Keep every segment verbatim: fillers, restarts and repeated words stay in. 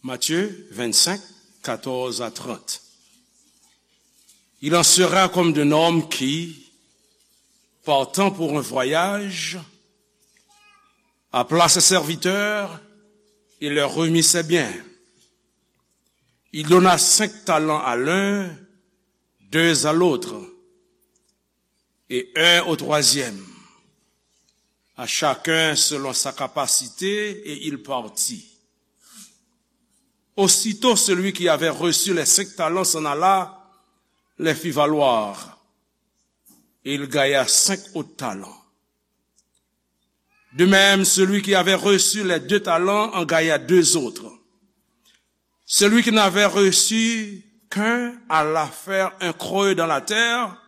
Matthieu vingt-cinq, quatorze à trente. Il en sera comme d'un homme qui, partant pour un voyage, appela ses serviteurs et leur remit ses biens. Il donna cinq talents à l'un, deux à l'autre, et un au troisième, à chacun selon sa capacité, et il partit. Aussitôt celui qui avait reçu les cinq talents s'en alla, les fit valoir, et il gagna cinq autres talents. De même, celui qui avait reçu les deux talents en gagna deux autres. Celui qui n'avait reçu qu'un alla faire un creux dans la terre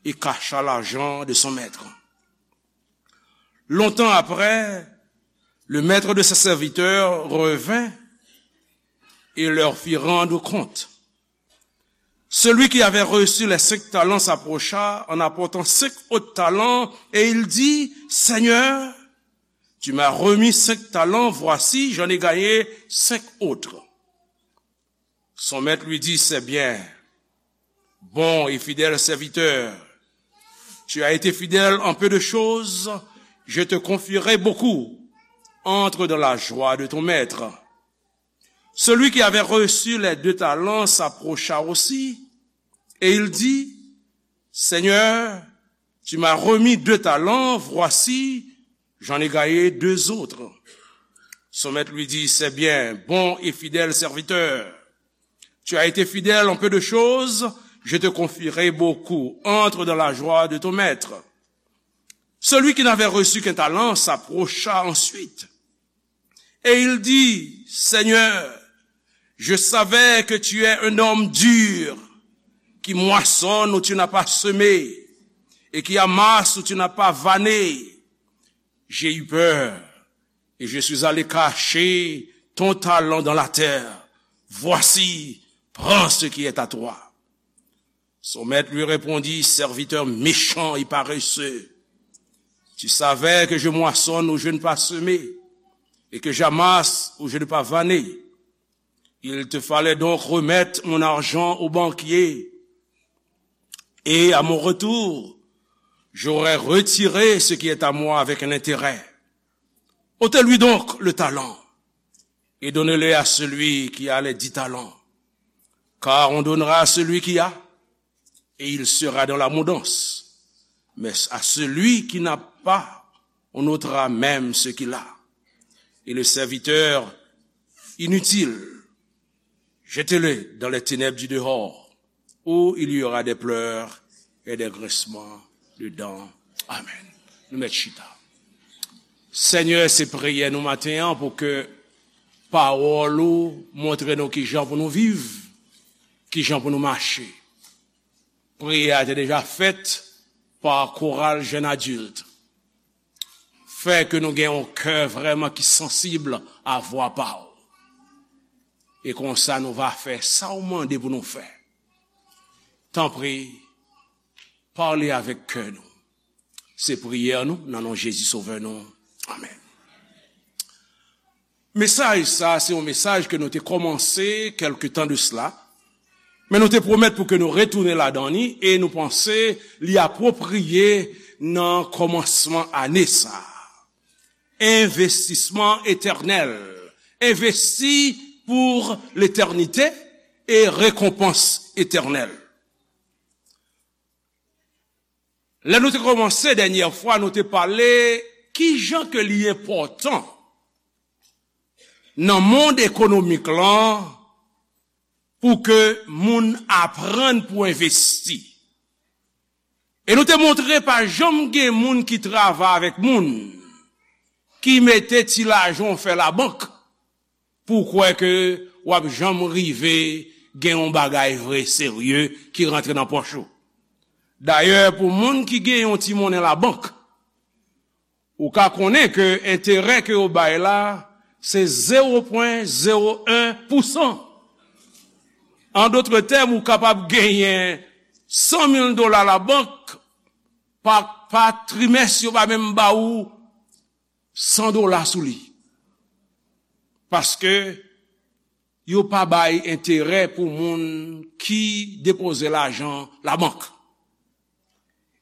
et cacha l'argent de son maître. Longtemps après, le maître de ses serviteurs revint et leur fit rendre compte. Celui qui avait reçu les cinq talents s'approcha en apportant cinq autres talents et il dit : « Seigneur, tu m'as remis cinq talents, voici, j'en ai gagné cinq autres. » Son maître lui dit : « C'est bien, bon et fidèle serviteur. Tu as été fidèle en peu de choses, je te confierai beaucoup. Entre dans la joie de ton maître. » Celui qui avait reçu les deux talents s'approcha aussi et il dit : « Seigneur, tu m'as remis deux talents, voici, j'en ai gagné deux autres. » Son maître lui dit : « C'est bien, bon et fidèle serviteur. Tu as été fidèle en peu de choses, je te confierai beaucoup. Entre dans la joie de ton maître. » Celui qui n'avait reçu qu'un talent s'approcha ensuite et il dit : « Seigneur, je savais que tu es un homme dur, qui moissonne où tu n'as pas semé, et qui amasse où tu n'as pas vanné. J'ai eu peur, et je suis allé cacher ton talent dans la terre. Voici, prends ce qui est à toi. » Son maître lui répondit : « Serviteur méchant et paresseux, tu savais que je moissonne où je n'ai pas semé, et que j'amasse où je n'ai pas vanné. Il te fallait donc remettre mon argent au banquier, et à mon retour, j'aurais retiré ce qui est à moi avec un intérêt. Ôtez-lui donc le talent et donnez-le à celui qui a les dix talents. Car on donnera à celui qui a, et il sera dans l'abondance. Mais à celui qui n'a pas, on ôtera même ce qu'il a. Et le serviteur inutile, jetez-le dans les ténèbres du dehors, où il y aura des pleurs et des grincements de dents. » Amen. Nou mèt chita. Senyè, se priyè nou maten an pou ke pawòl ou montre nou kijan pou nou viv, kijan pou nou mache. Priyè a te deja fèt pa koral jèn adilt. Fè ke nou gen yon kè vrèman ki sansib a vwa pa w. E konsa nou va fè sa w mande pou nou fè. Tanpri, pale avèk kè nou. Se priyè nou nan non Jezi Sovè nou. Amèn. Mesaj sa, se yon mesaj ke nou te kòmanse kèlke tan de sila, men nou te pwomèt pou ke nou retounen ladan li, e nou panse li apwopriye nan kòmansman ane sa. Envestisman etènèl. Envesti pou letènite e rekonpans etènèl. Lè nou te kòmanse dènyè fwa, nou te pale kijan ke li enpòtan nan mond ekonomik lan pou ke moun aprann pou envesti. E nou te montre pa janm gen moun ki travay avèk moun ki mete ti lajan w fè labank pou w kwè ke w ap janm rive gen yon bagay vre serye ki rantre nan pòch ou. Dayè, pou moun ki gen yon ti monnen labank, ou ka konnen ke enterè ke yo bay la, se zewo pwen zewo en pousan. An dòt tèm, ou kapab genyen san mil dola labank, pa, pa trimès, yo pa menm ba ou san dola sou li. Paske yo pa bay enterè pou moun ki depoze lajan labank.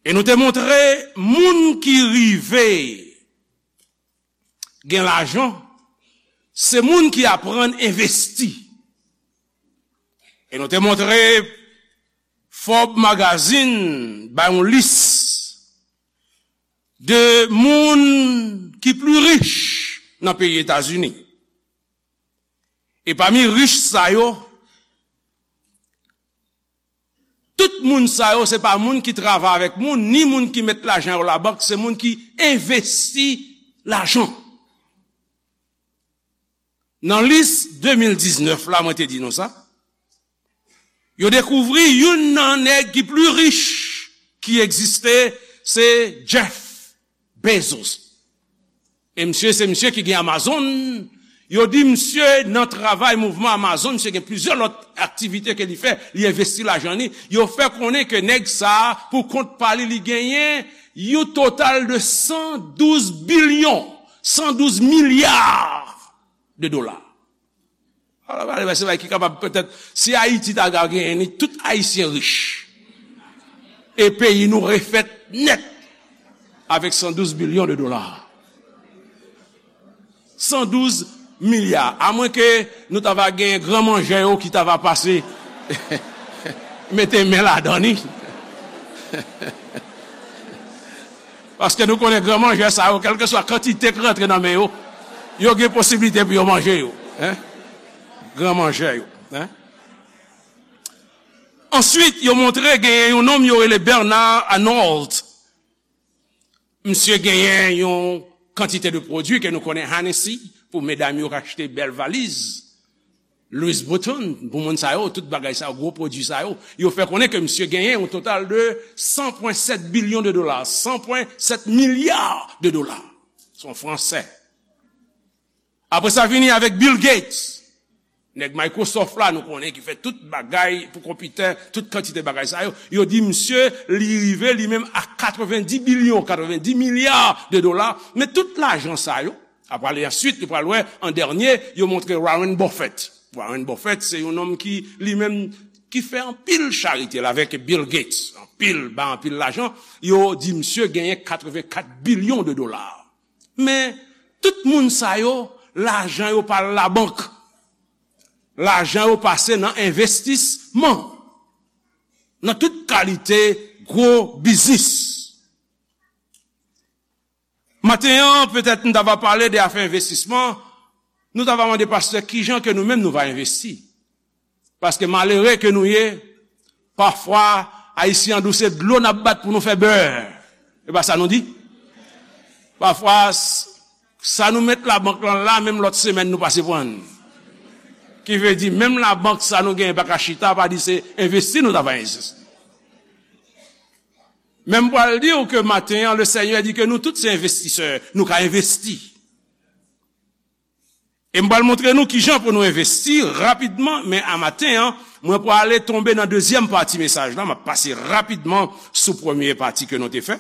E nou te montre moun ki rive gen lajan, se moun ki aprann envesti. E nou te montre Forbes Magazine bay yon lis de moun ki pli rich nan peyi Etazini. E pami rich sa yo, tout moun sa yo, se pa moun ki travay avèk moun, ni moun ki met lajan yo labank, se moun ki envesti lajan. Nan lis de mil diznèf la, mwen te di nou sa, yo dekouvri youn nan nèg ki pli rich ki egziste, se Jeff Bezos. E misye, se misye ki gen Amazon. Yo di misye nan travay mouvman Amazon, misye gen plizyè lòt aktivite ke li fè, li envesti lajan li. Yo fè konnen ke nèg sa, pou kont pa li, li genyen yon total de san douz bilyon, san douz milya de dola. Alò, alò, se bagay ki kapab petèt, si Ayiti ta ka genyen ni, tout Ayisyen rich. E peyi nou refèt nèt avèk san douz bilyon de dola. San douz milya. Amwenke nou ta va gen gran manjè yo ki ta va pase mete men ladan ni. Paske nou konnen gran manjè sa yo, kèlkeswa kantite k rantre nan men yo, yo gen posiblite pou yo manje yo. Hein? Gran manjè yo. Hein? Answit, yo montre genyen yon nonm yo rele Bernard Arnault. Misye genyen yon kantite de pwodui ke nou konnen, Hennessy, pou medam yo k achte bèl valiz. Louis Vuitton, pou moun sa yo, tout bagay sa yo, gwo pwodui sa yo, yo fè konnen ke misye genyen yon total de san pwen sèt bilyon de dola, san pwen sèt milya de dola. Se yon Fransè. Apre sa, vini avèk Bill Gates. Nèg Microsoft la, nou konnen ki fè tout bagay pou konpitè, tout kantite bagay sa yo. Yo di misye, li rive li menm a katrevendi bilyon, katrevendi milya de dola. Men tout lajan sa yo, apre ale answit, nou pral wè an dènye, yo montre Warren Buffett. Warren Buffett, se yon nonm ki, li menm, ki fè anpil charite la avèk Bill Gates. Anpil, ba anpil lajan. Yo di misye genyen katrevenkat bilyon de dola. Men, tout moun sa yo, lajan yo pa al labank. Lajan yo pase nan envestisman. Nan tout kalite gwo biznis. Maten an, petèt nou ta va pale de afè envestisman, nou ta va mande pastè kijan ke nou menm nou va envesti. Paske malere ke nou ye, pafwa, Ayisyen an di w se dlo n ap bat pou nou fè bè. E pa sa nou di? Pafwa, s-, sa nou met labank lan la, menm lòt semèn nou pase pran l. Ki vle di, menm labank sa nou genyen pa ka chita, pa di se envesti nou ta va envesti. Men m pral di w ke maten an, le Senyè di ke nou tout se envestisè, nou ka envesti. E m pral montre nou kijan pou nou envesti rapidman, men a maten an, mwen prale tonbe nan dezyèm pati mesaj la, m ap pase rapidman sou premye pati ke nou te fè.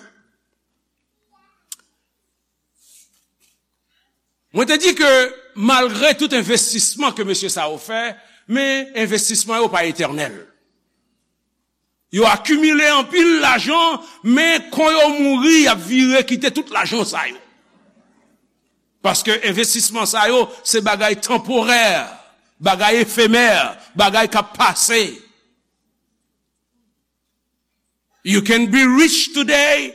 Mwen te di ke malgre tout envestisman ke mesye sa yo fè, men envestisman yo pa etènèl. Yo akimile anpil lajan, men kon yo mouri, y ap vire kite tout lajan sa yo. Paske envestisman sa yo, se bagay tanporè, bagay efemè, bagay k ap pase. You can be rich today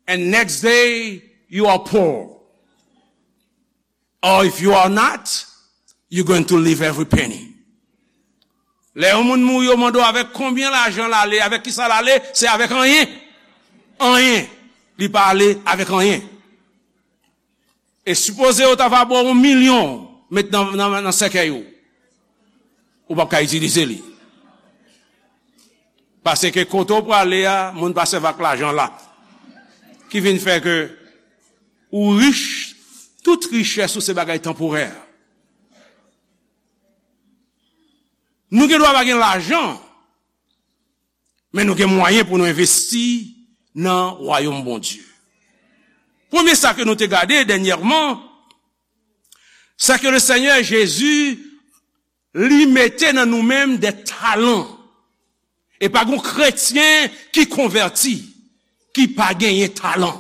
and next day you are poor. Or if you are not, you're going to leave every penny. Lè yon moun mouri, yo mande w avèk konbyen lajan l ale, avèk kisa l ale, se avèk anyen. Anyen. Li pa ale avèk anyen. E sipoze yo ta va ba w yon milyon, met nan, nan, nan sèkèy ou. Ou p ap ka itilize li. Paske kote w prale a, moun pa sèvi ak lajan la. Ki vin fè ke ou rich, tout richès ou se bagay tanporè. Nou gen dwa pa gen lajan, men nou gen mwayen pou nou envesti nan wayòm Bondye. Premye sa ke nou te gade dènyèman, se ke le Senyè Jezi Li mete nan nou menm de talan. E pa gon kretyen ki konvèti, ki pa genyen talan.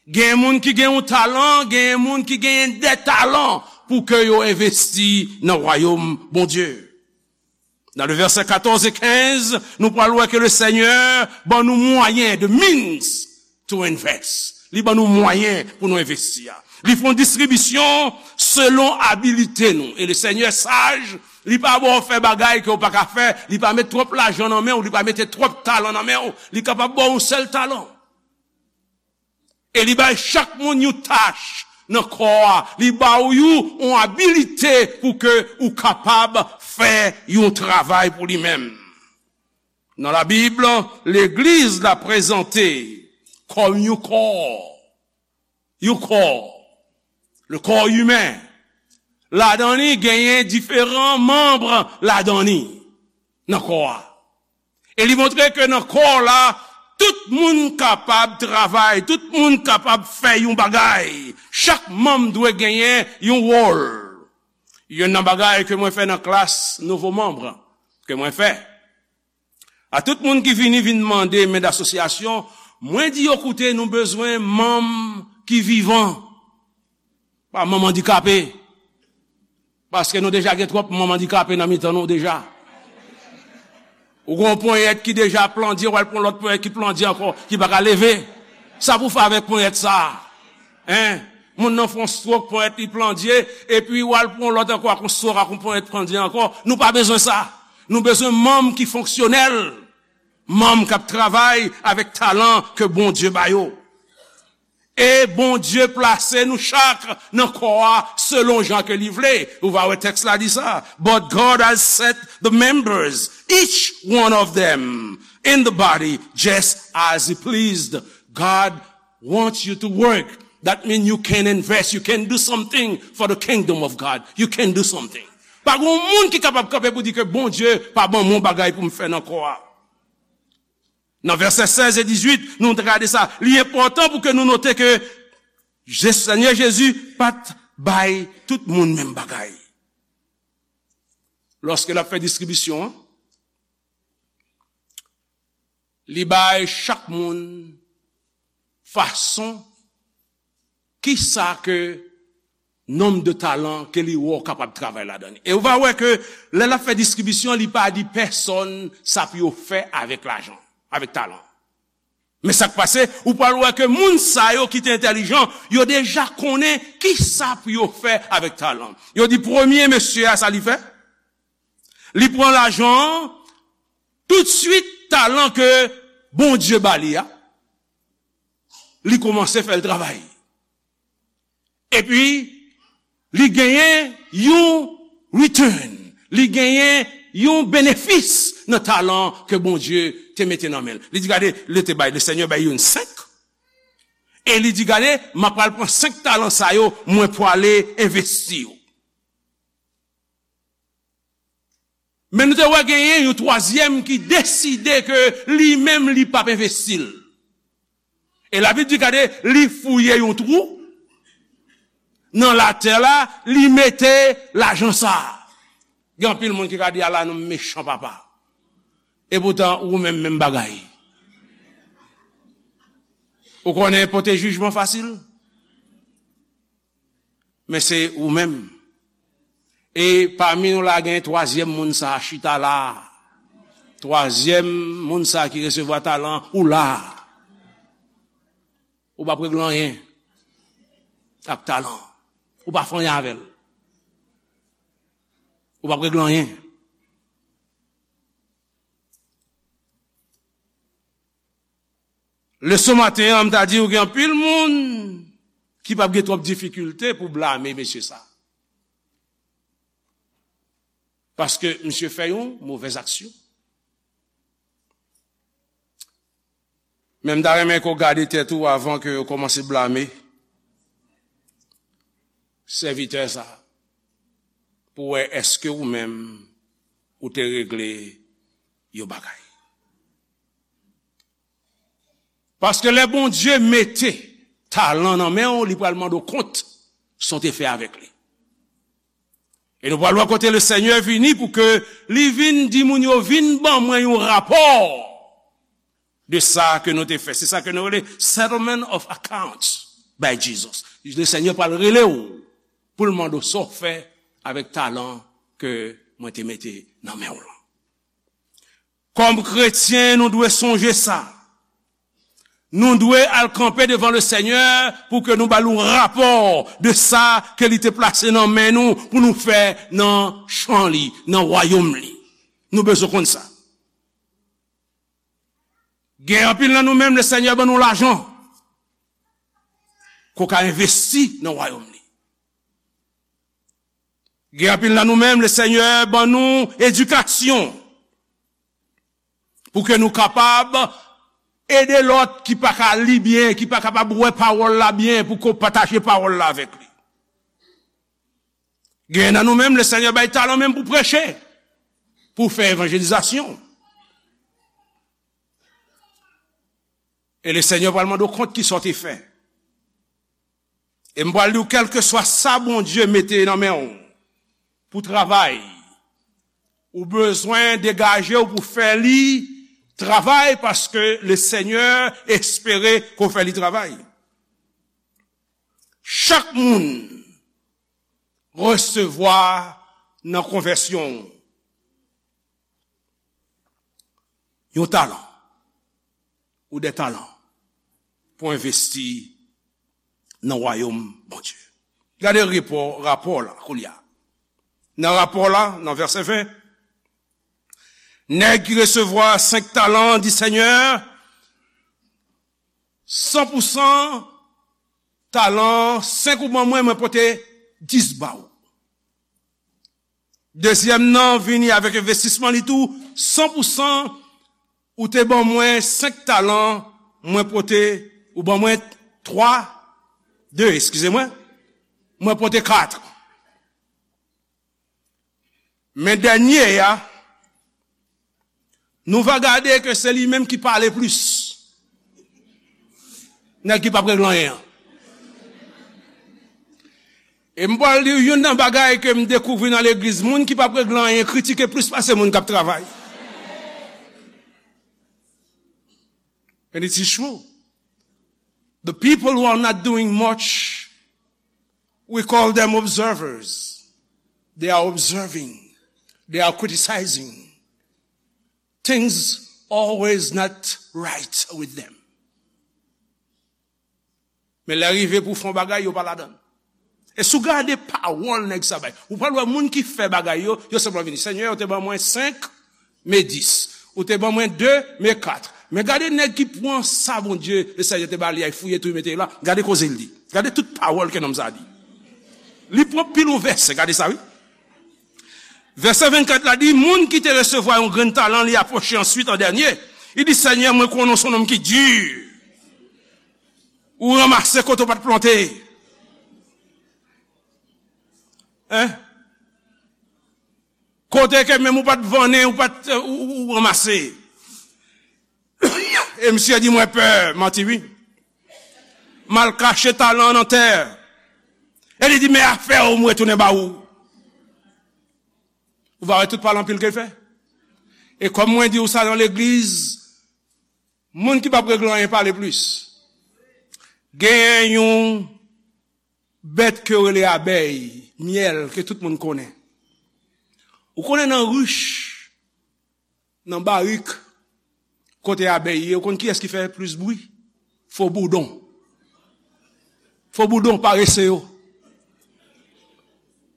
Gen moun ki gen yon talan, gen moun ki genyen de talan pou ke yo envesti nan wayòm Bondye. Nan le vèsè katòz e kenz, nou pral wè ke le Senyè ban nou mwayen, the means to invest. Li ban nou mwayen pou nou envesti a. Li fè yon distribisyon selon abilite nou. E le Senyè saj, li pa ba w fè bagay ke w pa ka fè, li pa met twòp lajan nan men w, li pa mete twòp talan nan men w, li kapab ba w yon sèl talan. E li bay chak moun yon tach nan kò a. Li ba w yon, yon abilite pou ke ou kapab fè yon travay pou li menm. Nan Labib, legliz la prezante kòm yon kò. Yon kò. Le corps humain. Ladan li genyen diferan manm ladan li nan kò a. E li montre ke nan kò la, tout moun kapab travay, tout moun kapab fè yon bagay. Chak manm dwe genyen yon wòl. Youn nan bagay ke mwen fè nan klas nouvo manm ke mwen fè, a tout moun ki vini, vin mande men d'asosyasyon, mwen di yo, koute, nou bezwen manm ki vivan, pa manm andikape. Paske nou deja gen twòp manm andikape nan mitan nou deja. Ou gen yon ponyèt ki deja plandye, w al pran lòt ponyèt ki plandye ankò, ki pa ka leve. Sa pou fè avèk ponyèt sa a? Hein? Moun nan fè yon stroke, ponyèt li plandye, epi w al pran lòt ankò ak yon stroke, ak yon ponyèt plandye ankò. Nou pa bezwen sa. Nou bezwen manm ki fonksyonèl. Manm k ap travay avèk talan ke Bondye ba yo. E Bondye plase nou chak nan kò a selon jan ke li vle. Ou va wè tèks la di sa. But God has set the members, each one of them, in the body just as he pleased. God wants you to work. That means you can invest, you can do something for the kingdom of God. You can do something. Pa gen moun ki kapab kanpe pou di ke Bondye pa ban mwen bagay pou m fè nan kò a. Nan vèsè sèz e dizuit, nou te gade sa. Li enpòtan pou ke nou note ke Je-, Senyè Jezi pa t bay tout moun menm bagay. Lòske l ap fè distribisyon an, li bay chak moun fason, kisa ke nonb de talan ke li wè w kapab travay ladan li. E ou va wè ke lè l ap fè distribisyon, li pa di pèsòn sa pou yo fè avèk lajan, avèk talan. Men sa k pase, ou pral wè ke moun sa yo ki te entèlijan, yo deja konnen kisa pou yo fè avèk talan. Yo di premye mesye a, sa li fè? Li pran lajan an, toutswit talan ke Bondye ba li a, li kòmanse fè l travay. Epi, li genyen yon return, li genyen yon benefis nan talan ke Bondye te mete nan men l. Li di, gade, li te bay, le Senyè bay youn senk, e li di, gade, m ap pral pran senk talan sa yo, mwen pwale envesti yo. Men nou te wè genyen yon twazyèm ki deside ke li menm li p ap envesti l. E Labib di, gade, li fouye yon twou nan latè la, li mete lajan sa a. Gen anpil moun ki ka di, ala nou mechan papa. E poutan, ou menm, menm bagay. Ou konnen pote jijman fasil? Men se ou menm. E pami nou la, gen twazyèm moun sa a chita la. Twazyèm moun sa a ki resevwa talan, ou la. Ou p ap regle anyen ak talan. Ou pa fè anyen avè l. Ou p ap regle anyen. Leson maten an, m ta di w gen anpil moun ki p ap gen twòp difikilte pou blame mesye sa. Paske misye fè yon movèz aksyon. Men m ta renmen ke w gade tèt ou avan ke w kòmanse blame sèvitè sa a, pou w wè èske ou menm ou te regle yon bagay. Paske lè Bondye mete talan nan men w, li pral mande w kont sa w te fè avèk li. E nou pral wè kote Lesenyè vini pou ke li vin di moun yo, vin ban mwen yon rapò de sa ke nou te fè. Se sa ke nou rele settlement of accounts by Jesus. Lesenyè pral rele w pou l mande w sa w fè avèk talan ke mwen te mete nan men w lan. Kòm kretyen, nou dwe sonje sa. Nou dwe al kanpe devan Lesenyè pou ke nou ba l yon rapò de sa ke li te plase nan men nou pou nou fè nan chan li, nan wayòm li. Nou bezwen konn sa. Gen anpil nan nou menm, Lesenyè ban nou lajan ke w ka envesti nan wayòm li. Gen anpil nan nou menm, Lesenyè ban nou edikasyon pou ke nou kapab ede lòt ki pa ka li byen, ki pa kapab wè pawòl la byen, pou ke w pataje pawòl la avèk li. Gen nan nou menm, Lesenyè bay talan menm pou preche, pou fè evanjelizasyon. E Lesenyè pral mande w kont ki sa w te fè. E m pral di w, kèlkeswa sa Bondye mete nan men w pou travay, ou bezwen degaje w pou fè li travay, paske Lesenyè espere ke w fè li travay. Chak moun resevwa nan konvèsyon w yon talan ou de talan pou envesti nan wayòm Bondye. Gade repò, rapò la, koulye a. Nan rapò la, nan vèsè ven, nèg ki resevwa senk talan di Senyè, san pou san talan, senk ou ban mwen, mwen pote dis ba ou. Dezyèm nan vini avèk envestisman li tou, san pou san, ou te ban mwen senk talan, mwen pote, ou ban mwen twa, de, eskize mwen, mwen pote kat. Men dènye a, nou va gade ke se li menm ki pale plis. Nèg ki p ap regle anyen an. E m pral di w youn nan bagay ke m dekouvri nan legliz, moun ki p ap regle anyen kritike plis pase moun k ap travay. And it is true. The people who are not doing much, we call them observers. They are observing. They are criticizing. Things always not right with them. Men lè rive pou fè yon bagay, yo pa ladan l. E si w gade pawòl nèg sa bay, ou pral wè moun ki fè bagay yo, yo senpleman vini. Senyè, ou te ban mwen senk, men dis. Ou te ban mwen de, men kat. Men gade nèg ki pran sa Bondye, Lesenyè te ba li a, fouye tou, mete l la. Gade koze l di. Gade tout pawòl ke nonm sa a di. Li pran pil yon vèsè, gade sa wi. Vèsè vennkat la di, moun ki te resevwa yon grenn talan, li apwoche answit an dènye. Li di, Senyè, mwen konnen w se yon nonm ki di. Ou ranmase kote w pa t plante. Hein? Kote ke menm ou pa t vannen, ou pa t, ou, ou, ou ranmase. E misye di, mwen pè, manti wi. M al kache talan an nan tè. E li di, men afè w, m retounen ba ou. Ou va wè tout pale anpil ke l fè. E kòm mwen di w sa nan legliz, moun ki p ap regle anyen pale plis. Genyen yon bèt ke yo rele abèy, myèl, ke tout moun konnen. Ou konnen nan rich, nan barik, kote abèy ye, ou konn kiyès ki fè plis bri? Fo boudon. Fo boudon, parese yo.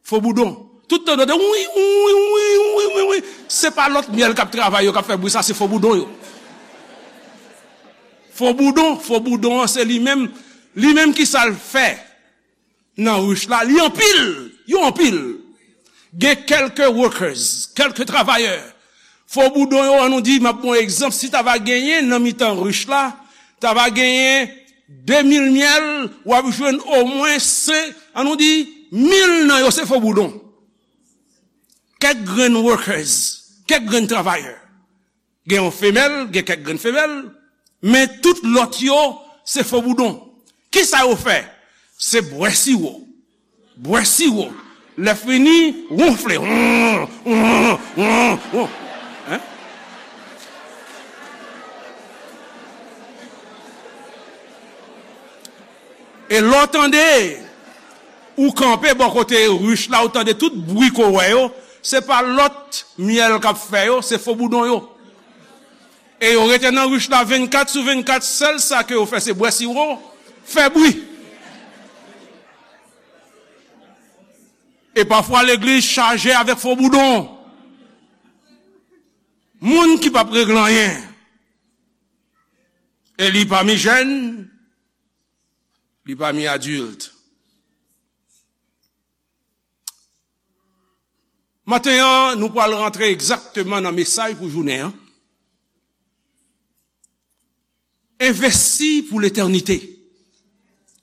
Fo boudon. Tout tan tande wi, wi, wi, wi, wi, wi. Se pa lòt myèl k ap travay yo k ap fè bri sa, se fo boudon yo. Fo boudon, fo boudon an se li menm, li menm ki sa l fè nan rich la, li anpil, yo anpil. Gen kèlke workers, kèlke travayè. Fo boudon yo, an nou di, m ap ba w egzanp, si ta va genyen nan mitan rich la, ta va genyen de mil myèl, w ap jwenn omwen senk, an nou di, mil nan yo se fo boudon. Kèk grenn workers, kèk grenn travayè. Gen yon femèl, gen kèk grenn femèl, men tout lòt yo, se fo boudon. Kisa yo fè? Se bwè siwo. Bwè siwo. Lè fini, wonfle. Won, won, won, won. Hein? E lè w tande, ou kanpe bò kote rich la, ou tande tout bri ke w wè yo, se pa lòt myèl k ap fè yo, se fo boudon yo. E yo rete nan rich la vennkat sou vennkat, sèl sa ke yo fè se bwè siwo, fè bri. E pafwa legliz chaje avèk fo boudon. Moun ki p ap regle anyen. E li pami jèn, li pami adilt. Maten an, nou pral rantre egzakteman nan mesaj pou jounen an. Envesti pou letènite.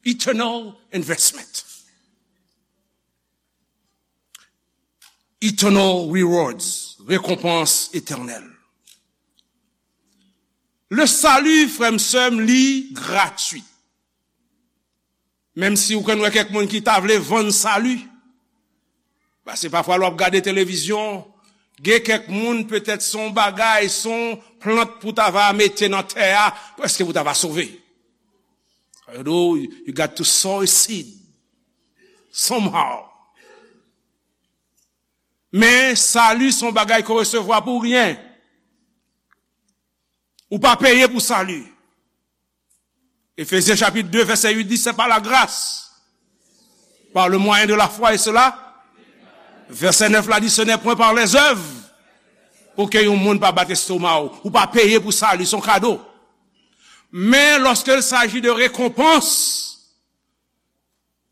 Eternal investment. Eternal rewards. Rekonpans etènèl. Le salut, frè m, sè m, li gratwi. Menm si ou konn wè kèk moun ki ta vle vann sali. Paske pafwa lè w ap gade televizyon, gen kèk moun petèt se yon bagay, se yon plant pou ta va mete nan tè a, prèske pou ta va sove. Although you got to sow a seed somehow. Men sali se yon bagay ke w resevwa pou ryen. Ou pa peye pou sali. Efezyen chapit de, vèsè uit di, c'est par la grâce, par le moyen de la foi, et cela, vèsè nèf la di, ce n'est point par les œuvres, pou ke yon moun pa bat estoma w. Ou pa peye pou sali, se yon kado. Men lorsqu'il s'agit de récompense,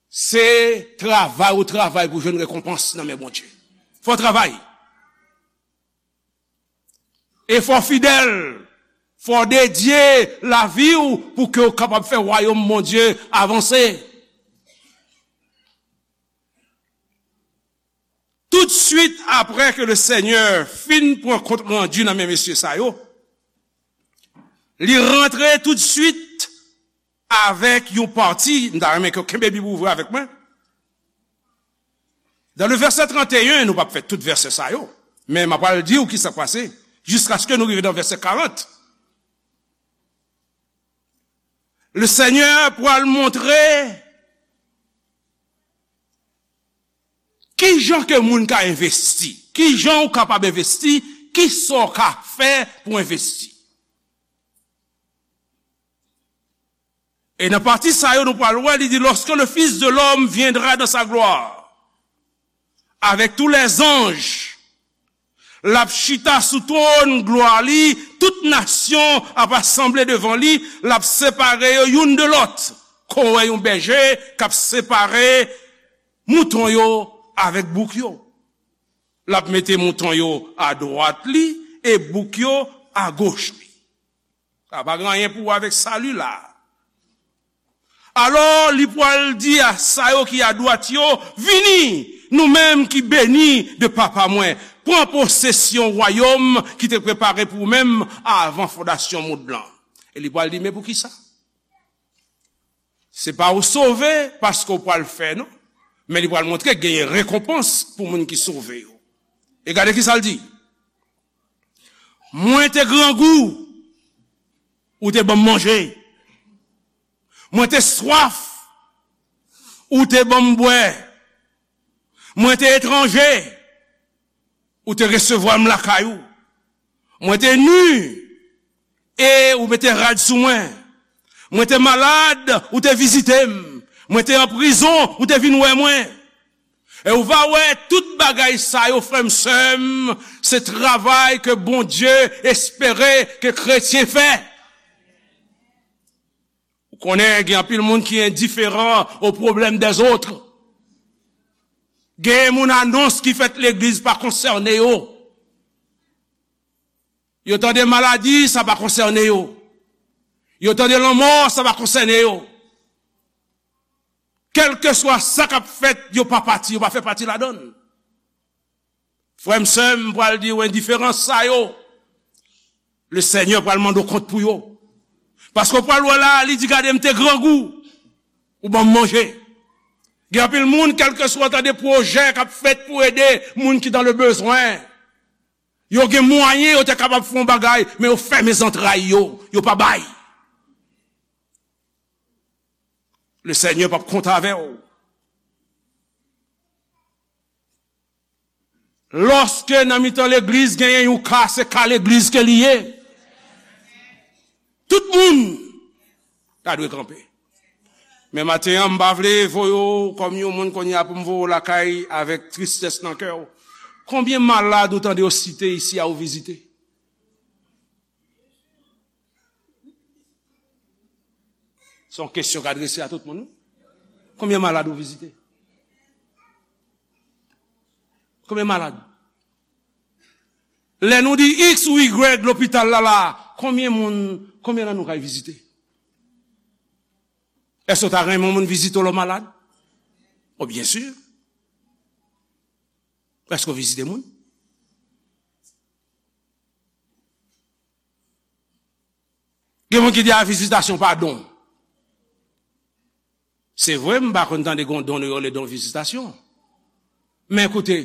se travay ou travay pou jwenn rekonpans nan men Bondye. Fò w travay. E fò w fidèl, fò w dedye lavi w pou ke w kapab fè wayòm Bondye avanse. Toutswit apre ke le Senyè fin pran kont randi nan men mesye sa yo, li rantre toutswit avèk yon pati, m ta renmen ke w kenbe Bib ouvri avèk mwen. Dans le verset trente et un, nou p ap fè tout vèsè sa yo, men m ap pral di w ki sa k pase, jiskaske nou rive nan vèsè karant. Le Senyè pral montre ki jan ke moun ka envesti, ki jan ou kapab envesti, ki sa w ka fè pou envesti. E nan pati sa yo, nou pral wè, li di, lorsque le Fils de l'homme viendra dans sa gloire, avec tous les anges, l ap chita sou twòn glwa li, tout nasyon ap asanble devan li, l ap separe yo youn de lòt, kon w wè yon bèje k ap separe mouton yo avèk bouk yo. L ap mete mouton yo adwat li e bouk yo agoch li. Sa pa gen anyen pou wè avèk sali la. Alò, li pral di a sa yo ki adwat yo, vini, nou menm ki beni de Papa mwen, pran posesyon wayòm ki te prepare pou ou menm avan fondasyon mond lan. E li pral di, men poukisa? Se pa ou sove paske ou pral fè, non. Men li pral montre genyen rekonpans pou moun ki sove yo. E gade ki sa l di. Mwen te grangou, ou te ban m manje. Mwen te swaf, ou te ban m bwè. Mwen te etranje, ou te resevwa m lakay ou. Mwen te ni, e ou mete rad sou mwen. Mwen te malad, ou te vizite m. Mwen te an prizon, ou te vin wè mwen. E ou va wè tout bagay sa yo, frè m, sè m, se travay ke Bondye espere ke kretyen fè. Ou konnen, gen anpil moun ki endiferan aux problèmes des autres. Gen moun, anons ki fèt legliz pa konsène yo. Yo tande maladi, sa pa konsène yo. Yo tande lanmò, sa pa konsène yo. Kèlkeswa sa k ap fèt, yo pa pati, yo pa fè pati ladan l. Frè m, sè m, m pral di w endiferans sa yo, le Senyè pral mande w kont pou yo. Paske w pral wè la, li di, gade, m te grangou, ou ban m manje. Gen anpil moun, kèlkeswa, tande, pwojè k ap fèt pou ede moun ki dans le besoin. Yo gen mwayen, yo te kapab fè yon bagay, men yo fèmen zantray yo, yo pa bay. Le Senyè p ap konte avè w. Lòske nan mitan legliz genyen yon ka, se ka legliz ke li ye. Tout moun ta dwe kanpe. Men maten an, m pa vle voye w kòm yon moun kounye a pou m voye w lakay avèk tristès nan kè w. Konbyen malad ou tande yo site isi a ou vizite? Se yon kesyon k adrese a tout moun, wi. Konbyen malad ou vizite? Konbyen malad? Lè nou di X ou Y lopital la la, konbyen moun, konbyen nan nou kay vizite? Èske w ta renmen yon moun vizite w lè w malad? O, byen si. Èske w vizite moun? Gen moun ki di a vizitasyon pa don. Se vre, m pa konn tande gon don yo rele don vizitasyon. Men koute,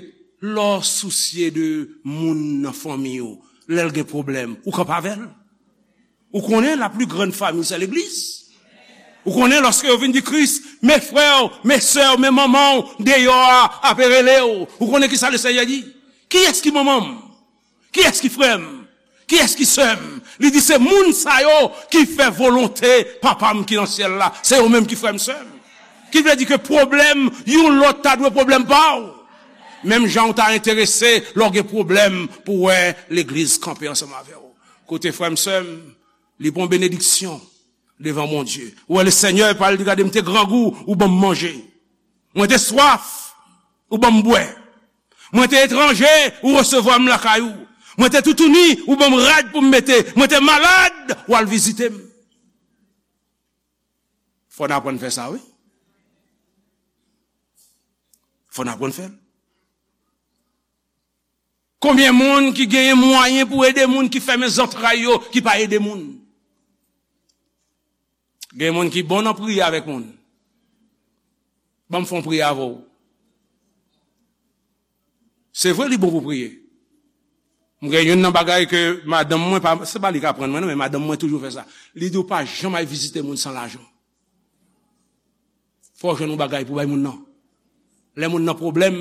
lè w sousye de moun nan fanmi w, lè l gen pwoblèm, ou kanpe avè l. Ou konnen la plus grande famille, c'est l'église. Ou konnen lòske yo vin di Kris, mes frères, mes sœurs, men manman w deyò a ap rele w. Ou konnen ki sa le Senyè di? Kiyès ki manman m? Kiyès ki frè m? Kiyès ki sè m? Li di se moun sa yo ki fè volonte Papa m ki nan syèl la. Se yo menm ki frè m, sè m. Ki vle di ke pwoblèm youn lòt ta dwe pwoblèm pa w. Menm jan w ta enterese lè w gen pwoblèm pou w wè legliz kanpe ansanm avè w. Koute frè m, sè m, li pran benediksyon devan Bondye. Ou wè, le Senyè pa l di, gade, m te grangou, ou ban m manje. Mwen te swaf, ou ban m bwè. Mwen te etranje, ou resevwa m lakay ou. Mwen te toutouni, ou ban m rad pou m mete. Mwen te malad, ou al vizite m. Fò n aprann fè sa, wi. Fò n aprann fè l. Konbyen moun ki genyen mwayen pou ede moun ki fèmen zantray yo, ki pa ede moun? Gen moun ki bon nan priye avèk moun. Ban m fè yon priyè avè w. Se vre, li bon pou priye. M gen youn nan bagay ke madanm mwen, pa, se pa li k aprann mwen, non, men madanm mwen toujou fè sa. Li di, w pa janm al vizite moun san lajan. Fò w jwenn yon bagay pou bay moun nan. Lè moun nan pwoblèm,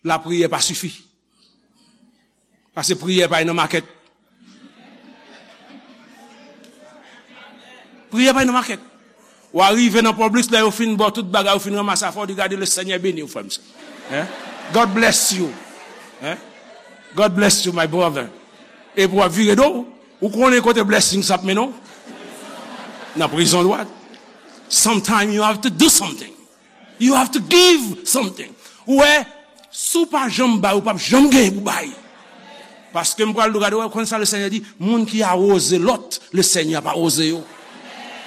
lapriyè pa sifi. Paske priyè pa nan makèt. Priyè pa nan makèt. W a rive nan Publix, lè yo fin ba w tout bagay, yo fin ranmase afè w, di, gade, le Senyè beni w, frè m, sè. Hein? God bless you. Hein? God bless you, my brother. Epi w ap vire do, ou konnen kote blessing sa ap mennen w? Nan prizon dwat. Sometimes you have to do something. You have to give something. Ou wè, si w pa janm bay, ou p ap janm genyen pou bay. Paske m pral di w, gade, w konn sa le Senyè di, moun ki awoze lòt, le Senyè ap awoze yo.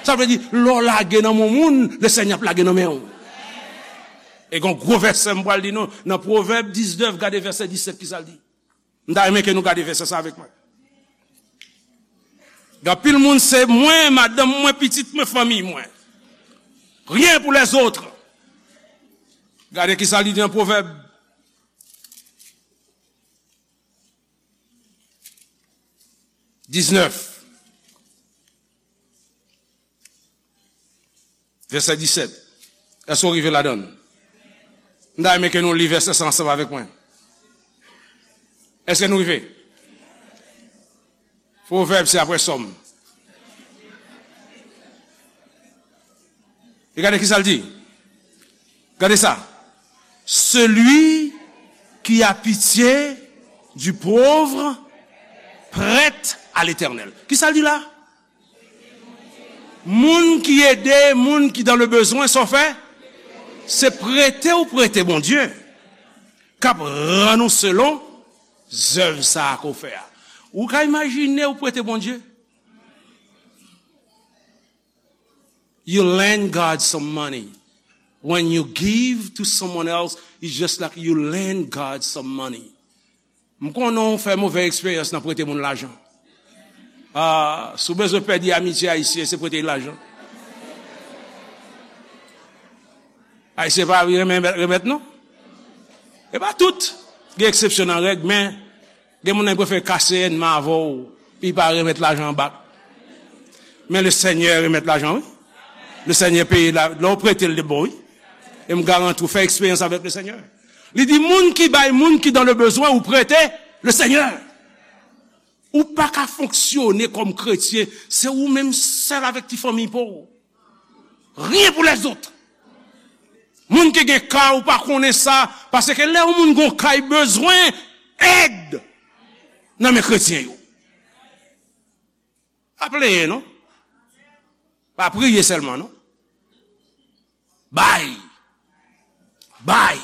Sa vle di, lè w lage nan men moun, le Senyè ap lage nan men w. E gen yon gwo vèsè m pral di nou, nan Pwovèb diznèf, gade vèsè disèt, ki sa l di. M ta renmen ke nou gade vèsè sa avèk mwen. Gen anpil moun se mwen, madanm mwen, pitit mwen, fanmi mwen. Rien pour les autres. Gade ki sa li di nan Pwovèb diznèf. Vèsè disèt. Èske w rive ladan l? M ta renmen ke nou li vèsè sa ansanm avèk mwen. Èske nou rive? Pwovèb, se apre Sòm. E gade ki sa l di. Gade sa. Celui qui a pitié du pauvre prête à l'Éternel. Ki sa l di la? Moun ki ede moun ki dans le besoin, sa w fè? Se prete ou prete Bondye k ap rann ou selon zèv sa a ke w fè a. Ou ka imajine ou prete Bondye? You lend God some money. When you give to someone else, it's just like you lend God some money. M konnen w fè movè eksperyans nan prete moun lajan. Ah, si w bezwen pèdi amitye ayisyen, se prete l lajan. Ayisyen pa renmen remèt, non? E pa tout. Gen eksepsyon nan règ, men gen moun nan ki prefere kase ènmi avè w, pi pa remèt lajan an bak. Men Lesenyè remèt lajan, wi. Lesenyè peye la, lè w prete l, li bon, wi. E m garanti w, fè eksperyans avèk Lesenyè. Li di, moun ki bay moun ki dans le besoin ou prete, Lesenyè. Ou pa ka fonksyone kòm kretyen, se ou menm sèl avèk ti fanmi pa w. Rien pour les autres. Moun ki gen kay, ou pa konnen sa, paske lè yon moun gon kay, bezwen èd nan men kretyen yo. Pa plenyen, non. Pa priye sèlman, non. Bay. Bay.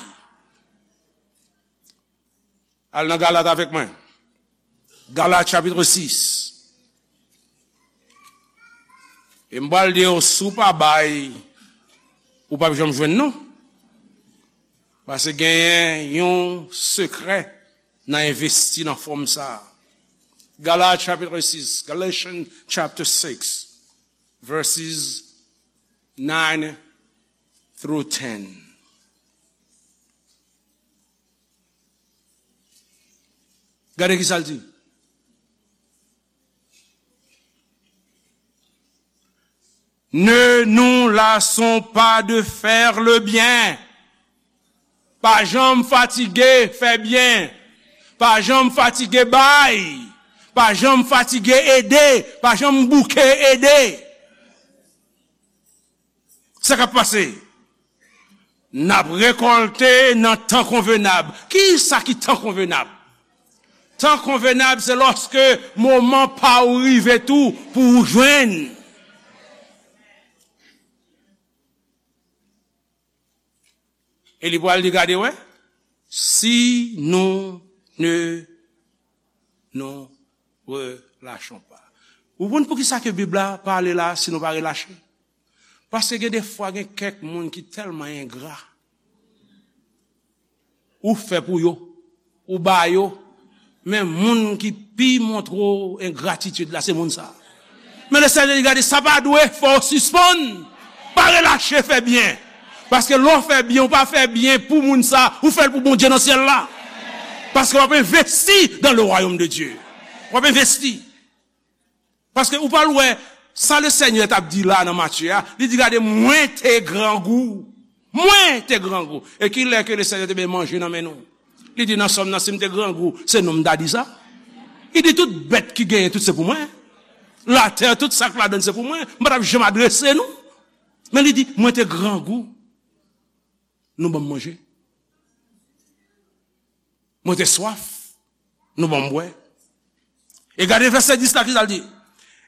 Al nan Galat avèk mwen. Galat chapit sis. E m pral di w, si w pa bay, ou p ap janm jwenn, non. Paske genyen yon sekrè nan envesti nan fòm sa a. Galat chapit sis, Galatians chapter six, verses nine through ten. Gade ki sa l di. Ne nous lassons pas de faire le bien. Pa janm fatige fè byen. Pa janm fatige bay. Pa janm fatige ede. Pa janm bouke ede. Sa k ap pase? N ap rekòlte nan tan konvenab. Ki sa ki tan konvenab? Tan konvenab, se lòske moman pa w rive tou pou w jwenn. E li pral di, gade, wè, si nous ne nous relâchons pas. Ou konn poukisa ke Bib la pale la, si nou pa relache? Paske gen de fwa, gen kèk moun ki tèlman engra. Ou fè pou yo, ou ba yo, men moun ki pi montre w engratitid la, se moun sa a. Men Lesenyè di, gade, sa pa dwe fè w sispann. Pa relache fè byen. Paske lè w fè byen, ou pa fè byen pou moun sa a, ou fè l pou Bondye nan syèl la. Paske w ap envesti dans le royaume de Dieu. W ap envesti. Paske ou pral wè sa Lesenyè t ap di la nan Matye a, li di, gade, mwen te grangou. Mwen te grangou. E ki lè ke Lesenyè te bay manje nan men nou? Li di nan Sòm nan, si m te grangou, se nou m ta di sa. Li di tout bèt ki genyen, tout se pou mwen. Latè, tout sa k ladan l se pou mwen. M pa t ap janm adrese nou. Men li di, mwen te grangou. Nou ban m manje. Mwen te swaf. Nou ban m bwè. E gade vèsè dis la, ki sa l di?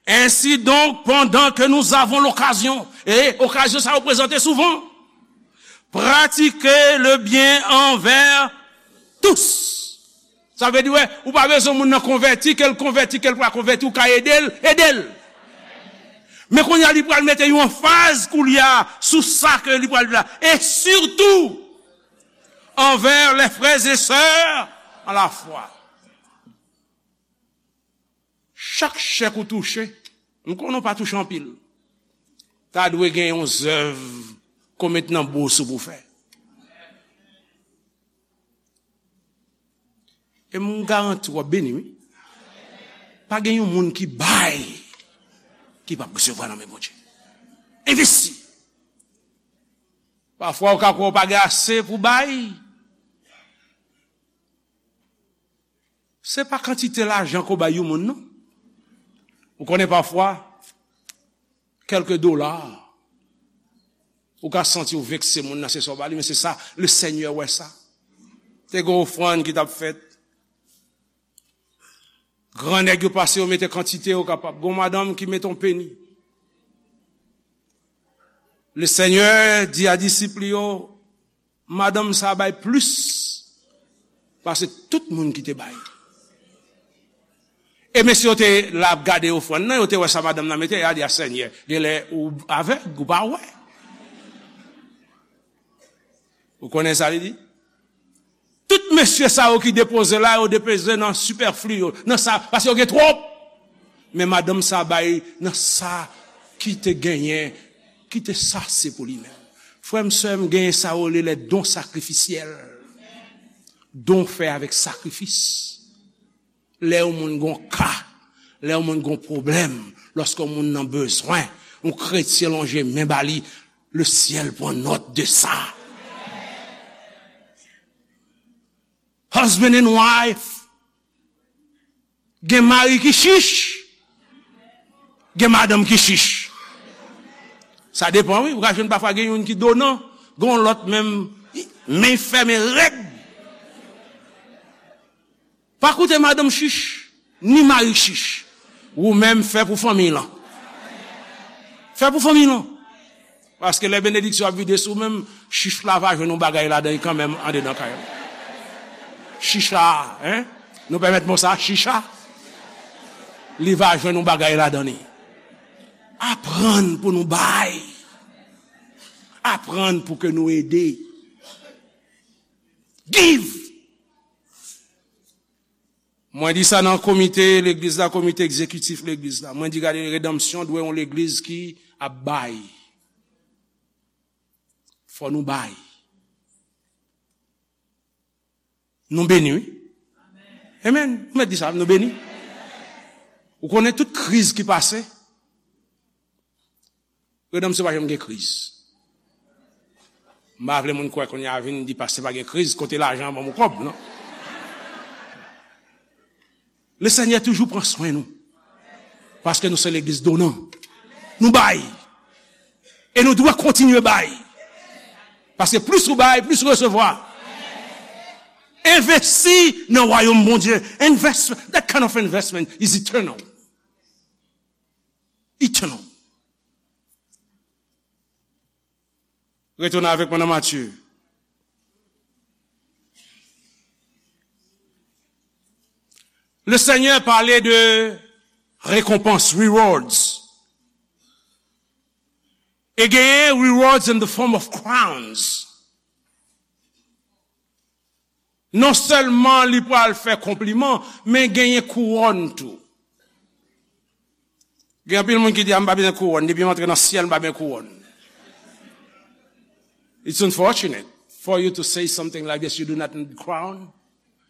Ainsi donc, pendant que nous avons l'occasion, e okazyon sa yo prezante souvan, pratiquez le bien envers tous. Sa vle di, wè, ou pa bezwen moun nan konvèti, ke l konvèti, ke l pa konvèti, ou ka ede l, ede l. Men kounye a, li pral mete yon anfaz kounye a sou sa ke li pral di la. Et surtout, envers les frères et sœurs en la foi. Chak chèk ou touche, m konnen w pa touche anpil, ta dwe gen yon zèv ke w met nan bous ou pou fè. E m garanti w ap beni, wi. Pa gen yon moun ki bay, ki p ap resevwa nan men Bondye. Envesti. Pafwa, ou ka kwè w pa gen ase pou bay. Se pa kantite lajan ke w bay yon moun, non. Ou konnen pafwa, kèlke dola, ou ka santi w vekse moun nan, se sa w ba li, men se sa, Lesenyè wè sa. Te gen ofrann ki t ap fèt. Gran nèg yo pase, yo mete kantite yo kapab. Gon madanm ki mete yon peni. Lesenyè di a disip li yo, madanm sa bay plis pase tout moun ki te bay. E mesye yo te la ap gade ofrann nan, yo te wè sa madanm nan mete, y a di, a Senyè, genlè ou avèg, ou pa wè. Ou konnen sa li di? Tout mesye sa yo ki depoze la, yo depoze nan sipèfli yo, nan sa, paske yo gen twòp. Men madanm sa bay nan sa ki te genyen, ki te sase pou li menm. Frè m, sè m, genyen sa yo rele les dons sacrificiels. Don fè avèk sakrifis. Lè yon moun gon ka, lè yon moun gon pwoblèm, lòske yon moun nan bezwen, yon kretyen lonje men ba li, le ciel prend note de ça. Husband and wife, gen mari ki chich, gen madanm ki chich. Sa depan, wi. Ou ka jwenn pafwa gen youn ki donan, gen yon lòt menm, men fèmen rèd. Pa koute madanm chich, ni mari chich. Ou menm fè pou fanmiy lan. Fè pou fanmiy lan. Paske lè benediksyon ap vide sou ou menm, chich la va jwenn yon bagay ladan li kanmenm andedan kay la. Chicha, en? Nou pèmèt mo sa, chicha? Li va jwenn yon bagay ladan li. Aprann pou nou bay. Aprann pou ke nou ede. Give! Mwen di sa nan komite legliz la, komite egzekitif legliz la. Mwen di, gade, redanmsyon dwe yon legliz ki ap bay. Fò nou bay. Nou beni, wi. Amen. Ou mèt di sa, nou beni. Ou konnen tout kriz ki pase, redanmsyon pa janm gen kriz. M pa vle moun kwè kounye a vin di pastè pa gen kriz, kote lajan an ban m yon kòb, non. Lesenyè toujou pran swen nou. Paske nou se legliz donan. Nou bay. E nou dwe kontinye bay. Paske plis ou bay, plis ou resevwa. Envesti nan wayòm Bondye. Investment, that kind of investment is eternal. Eternal. Retounen avèk mwen nan Matye. Le Seigneur pale de rekonpans, rewards. E genyen rewards in the form of crowns. Non sèlman li pral fè konpliman, men genyen kouwòn tou. Gen anpil moun ki di, "A, m pa bezwen kouwòn, depi m antre nan syèl, m pa bezwen kouwòn." It's unfortunate for you to say something like this, you do not need crown.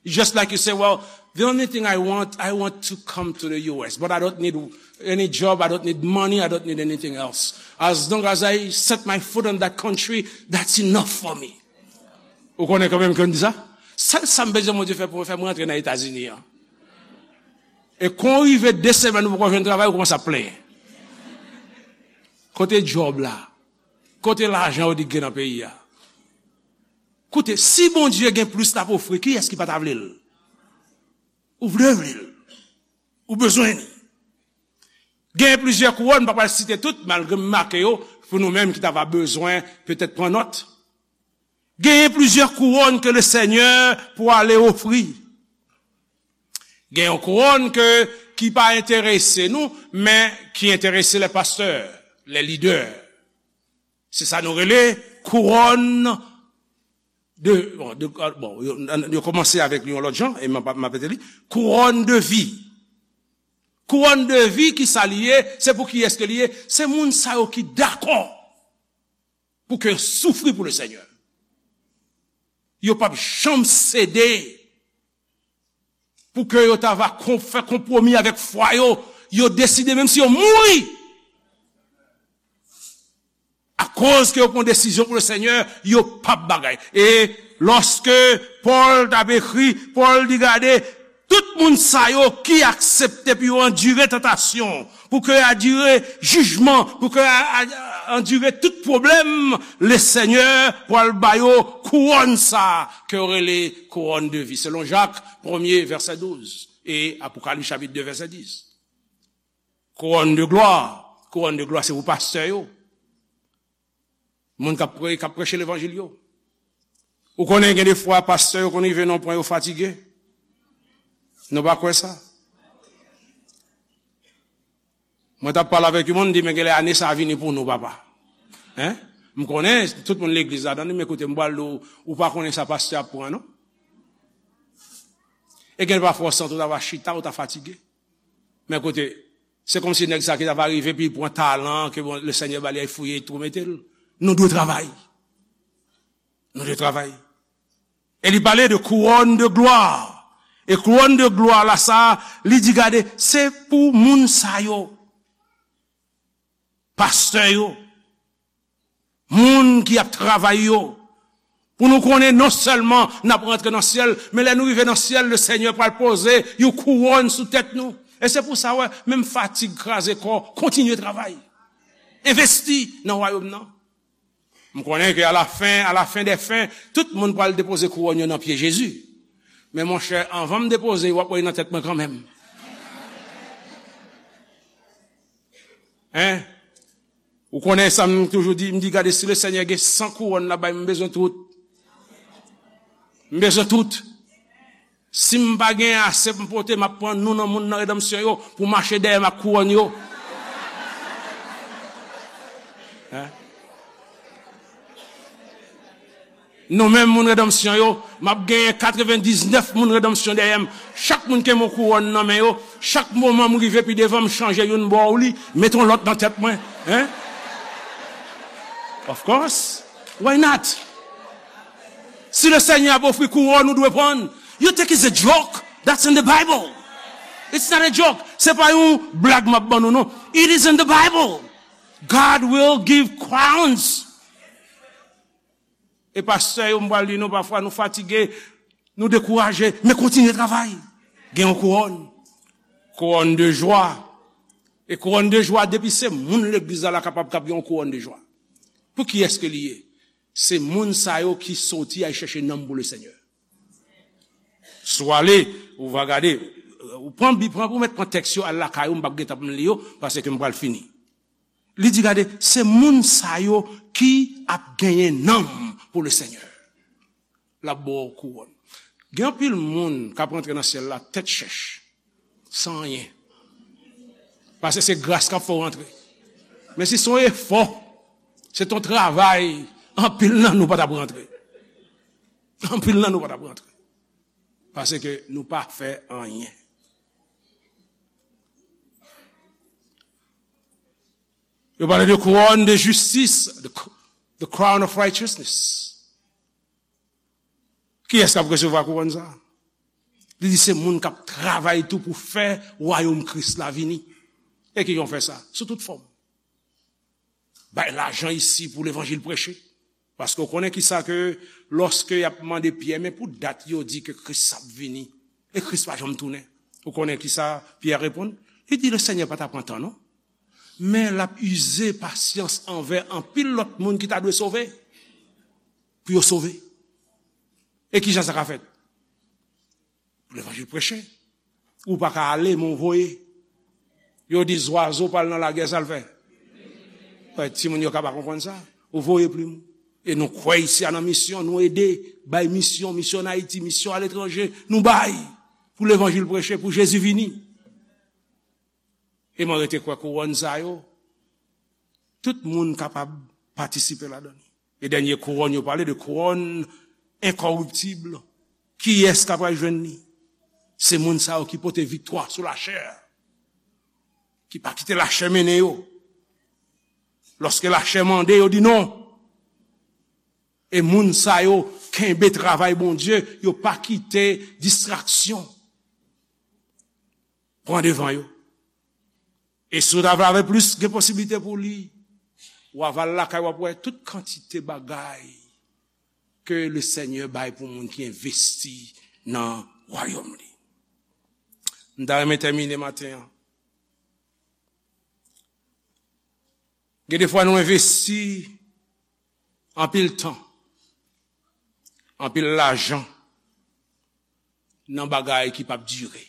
It's just like you say, "Well, the only thing I want, I want to come to the U S, but I don't need any job, I don't need money, I don't need anything else. As long as I set my foot on that country, that's enough for me." Ou konnen kanmenm ke m di sa? Sèl sa m bezwen Bondye fè pou mwen, fè mwen rantre nan Etazini an. E kon rive de semèn ou poko jwenn travay, ou kòmanse ap plenyen. Kote djòb la? Kote lajan yo di k gen nan peyi a? Koute, si Bondye gen plis l ap ofri, kiyès ki pa ta vle l? Ou vle vle l. Ou bezwen li. Genyen plizyè kouwòn, m pa pral site tout, malgre m make yo, pou nou menm ki ta va bezwen petèt pran nòt. Genyen plizyè kouwòn ke Lesenyè pou ale ofri. Gen yon kouwòn ke, ki pa enterese nou, men ki enterese lè pastè, lè lidè. Se sa nou rele kouwòn de, bon, de, bon, yo, yo kòmanse avèk li yon lòt jan, e m ap, m ap rete li, kouwòn de vi. Kouwòn de vi, ki sa li ye? Se pou kiyès ke li ye? Se moun sa yo ki dakò pou ke yo soufri pou Lesenyè. Yo p ap janm sede pou ke yo ta va kon-, fè konpwomi avèk fwa yo. Yo deside, menm si yo mouri, akoz ke yo pran desizyon pou Lesenyè, yo p ap bagay. E lòske Pòl t ap ekri, Pòl di, gade, tout moun sa yo ki aksepte pou yo andire tantasyon, pou ke andire jijman, pou ke a, a, andire tout pwoblèm, Lesenyè pral ba yo kouwòn sa a ke yo rele kouwòn de vi. Selon Jak, premye, vèsè douz, e Apokalis chapit de, vèsè dis. Kouwòn de glwa, kouwòn de glwa se pou pastè yo. Moun k ap pre-, k ap preche levanjil yo. Ou konnen gen de fwa pastè yo konn rive nan yon pwen yo fatige. Nou pa kwè sa? Mwen t ap pale avèk yon moun, m di, "Men genlè ane sa a vini pou nou, papa." Hein? M konnen tout moun legliz la, tande, men koute, m pral di w, ou pa konnen sa pastè ap pran, non? E gen pafwa w santi w ta va chita, ou ta fatige. Men koute, se kòmsi nèg sa ki ta va rive, epi li pran talan ke, bon, Lesenyè ba li, al fouye twou mete l. Nou dwe travay. Nou te travay. E li pale de couronne de gloire. E couronne de gloire la sa, li di, gade, se pou moun sa yo. Pastè yo. Moun ki ap travay yo. Pou nou konnen non sèlman n ap rantre nan syèl, men lè nou rive nan syèl, le Senyè pral poze yon kouwòn sou tèt nou. E se pou sa, wè, menm fatig, kraze kò, kontinye travay. Envesti nan wayòm nan. M konnen ke à la fin, à la fin des fins, tout moun pral depoze kouwòn yo nan pye Jezi. Men monchè, anvan m depoze, w ap wè nan tèt mwen kanmenm. Hein? Ou konnen sa m toujou di, m di, gade, si le Senyè gen san kouwòn la bay, m bezwen tout. M bezwen tout. Si m pa gen ase pou m pote, m ap pran nou nan moun nan redanmsyon yo pou mache dèyè m ak kouwòn yo. Hein? Nou menm moun redanmsyon yo, m ap genyen katrevendiznèf moun redanmsyon dèyè m. Chak moun ke m yon kouwòn nan men yo, chak moman m rive pi devan, m chanje youn ba w li, mete yon lòt nan tèt mwen. Hein? Of course. Why not? Si le Senyè ap ofri kouwòn, ou dwe pran. You think it's a joke? That's in the Bible. It's not a joke. Se pa yon blag m ap ban nou, non. It is in the Bible. God will give crowns. E pastè yo, m pral di nou, pafwa nou fatige, nou dekouraje, men kontinye travay. Gen yon kouwòn. Couronne de joie. E couronne de joie, depi se moun legliz la, la kapab, k ap gen yon couronne de joie. Pou kiyès ke li ye? Se moun sa yo ki soti al chèche nanm pou le Senyè. Si w ale, ou va gade, ou pran Bib, pran, ou mèt pran tèks yo, al lakay ou, m p ap gentan pou m li yo, paske m pral fini. Li di, gade, se moun sa yo ki ap genyen nanm pou le Senyè. L ap ba w kouwòn. Gen anpil moun k ap rantre nan syèl la tèt chèch, san anyen. Paske se gras k ap fè w rantre. Men si se yon efò, se t yon travay, anpil nan nou pa t ap rantre. Anpil nan nou pa t ap rantre. Paske nou pa fè anyen. Yo pale de couronne de justice, the, the crown of righteousness. Kiyès k ap resevwa kouwòn sa? Li di se moun k ap travay tou pou fè wayòm Kris la vini. E kijan w fè sa? Sou tout fòm. Bay lajan isi pou levanjil preche. Paske w konnen kisa ke lòske y ap mande Pyè, men pou dat yo di ke Kris ap vini, e Kris pa janm tounen. Ou konnen kisa Pyè reponn? Li di, le Senyè pa ta pran tan, non. Men l ap ize pasyans anvè anpil lòt moun ki ta dwe sove, pou yo sove. E kijan sa ka fèt? Pou levanjil preche. Ou pa ka ale, men w voye. Yo di zwazo pral nan lagè, sa l fè? Wè, timoun yo ka pa konprann sa. Ou voye plim ou. E nou kwè isi a nan misyon, nou ede, bay misyon, misyon an Ayiti, misyon aletranje, nou bay pou levanjil preche, pou Jezi vini. E mwen rete kwè kouwòn sa yo, tout moun kapab patisipe ladan li. E dènye kouwòn, yo pale de kouwòn enkòriptib. Kiyès k ap al jwenn li? Se moun sa yo ki pote viktwa sou lachè, ki pa kite lachè mennen yo. Lòske lachè mande, yo di non. E moun sa yo kenbe travay Bondye, yo pa kite distraksyon pran devan yo. E si w ta vle avè plis gen posiblite pou li, w a va al lakay, w ap wè tout kantite bagay ke le Senyè bay pou moun ki envesti nan wayòm li. M ta renmen tèmine maten an. Gen de fwa nou envesti anpil tan, anpil lajan nan bagay ki p ap dire.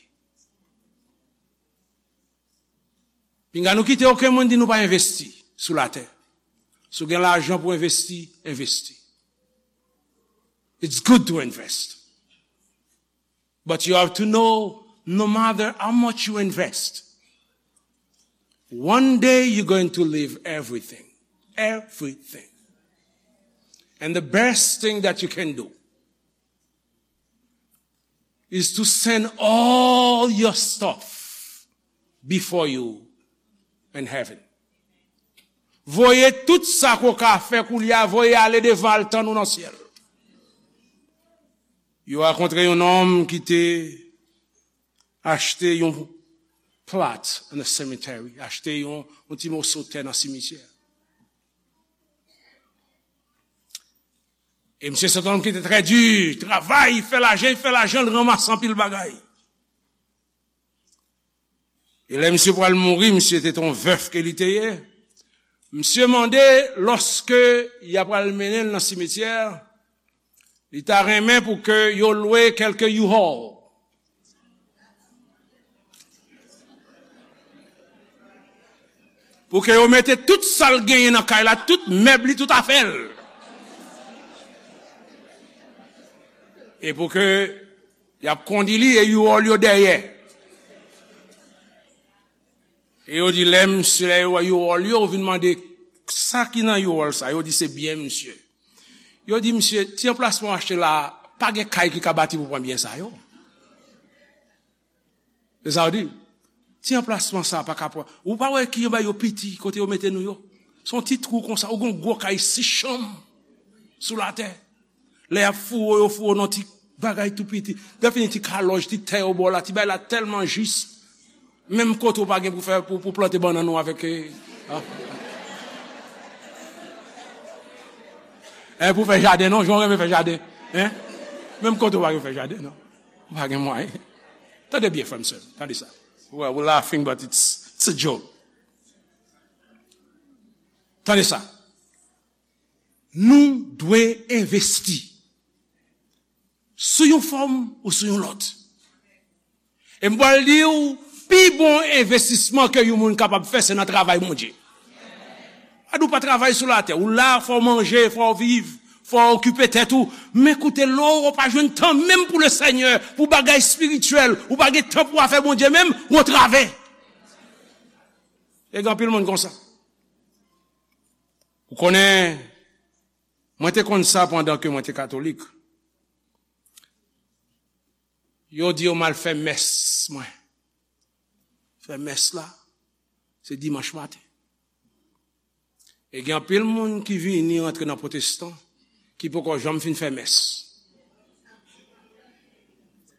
Pinga nou kite okenn moun di nou pa envesti sou latè. Si w gen lajan pou envesti, envesti. It's good to invest. But you have to know, no matter how much you invest, one day you're going to leave everything. Everything. And the best thing that you can do is to send all your stuff before you in heaven. Voye tout sa ke w ka fè koulye a, voye ale devan, al tann ou nan syèl. Yo rakontre yon nonm ki te achte yon plot in a cemetery, achte yon, yon ti moso tè nan simityè. E misye se yon nonm ki te trè di, travay, fè lajan, fè lajan, l ranmase anpil bagay. E lè misye pral mouri, misye te yon vèf ke li te ye. Misye mande, lòske y apral mennen l nan simityè, li ta renmen pou ke yo lwe kèlke U-Haul. Pou ke yo mete tout sa l genyen nan kay la, tout mèb li, tout afè l. E pou ke y ap kondi li e U-Haul yo dèyè. E yo di lè misye, lè yo wè U-Haul yo, yo vin mande sa ki nan U-Haul sa. Yo di se byen misye. Yo di misye, ti anplasman w achte la, pa gen kay ki ka bati pou pran byen sa yo. Se sa yo di. Ti anplasman sa pa ka pran. Ou pa wè ki anba yo piti kote yo mete nou yo. Se yon ti twou konsa, ou gen yon gwo kay sis chanm sou latè. Lè y ap foure w, yo foure w nan ti bagay tou piti. Lè fini ti kalòj, ti tè yo ba w la, ti bagay la tèlman jis. Menm kote w pa gen pou fè, pou, pou plante bannann ou avèk, eh, ah. Eh, pou fè jaden, non, jan w renmen fè jaden. Hein? Menm kote w pa gen pou fè jaden, non. Ou pa gen mwayen. Tande byen, frè m, sè m. Tande sa. Well, we're laughing, but it's, it's a joke. Tande sa. Nou dwe envesti sou yon fòm ou sou yon lòt. E m pral di w, pi bon envestisman ke yon moun kapab fè, se nan travay Bondye. Gade, ou pa travay sou latè, ou la, fò w manje, fò w viv, fò w okipe tèt ou. Men koute, lè w pa jwenn tan menm pou Lesenyè, pou bagay espirityèl, ou pa gen tan pou afè Bondye menm, ou antrave. E gen anpil moun konsa. Ou konnen, mwen te konn sa pandan ke mwen te katolik. Yo di yo m al fè mès mwen. Fè mès la, se dimanch maten. E gen anpil moun ki vini rantre nan pwotestan, ki poko janm fin fè mès.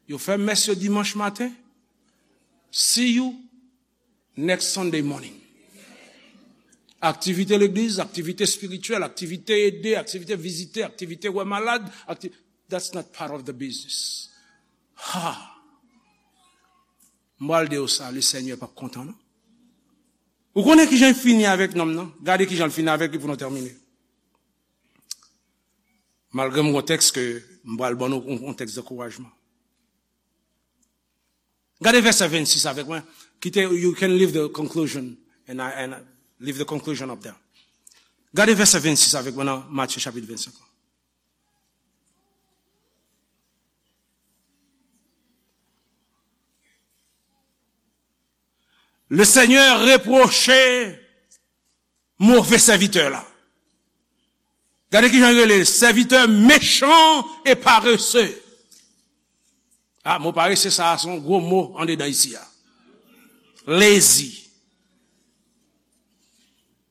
Yo fè mès yo dimanch maten. See you next Sunday morning. Aktivite legliz, aktivite espirityèl, aktivite ede, aktivite vizite, aktivite wè malad, akti-, that's not part of the business. Ha! M pral di w sa, Lesenyè p ap kontan, non. Ou konnen kijan l fini avèk nonm nan? Gade kijan l fini avèk li pou nou tèmine. Malgre m gon tèks ke m pral ban nou, yon, yon tèks ankourajman. Gade vèsè vennsis avèk mwen. Kite, you can leave the conclusion, and I, and I leave the conclusion up there. Gade vèsè vennsis avèk mwen nan Matye chapit vennsenk lan. Le Seigneur reproche move sèvitè la. Gade kijan l rele l, serviteur méchant et paresseux. Ah, mo parese sa a se yon gwo mo andedan isi a. Lazy.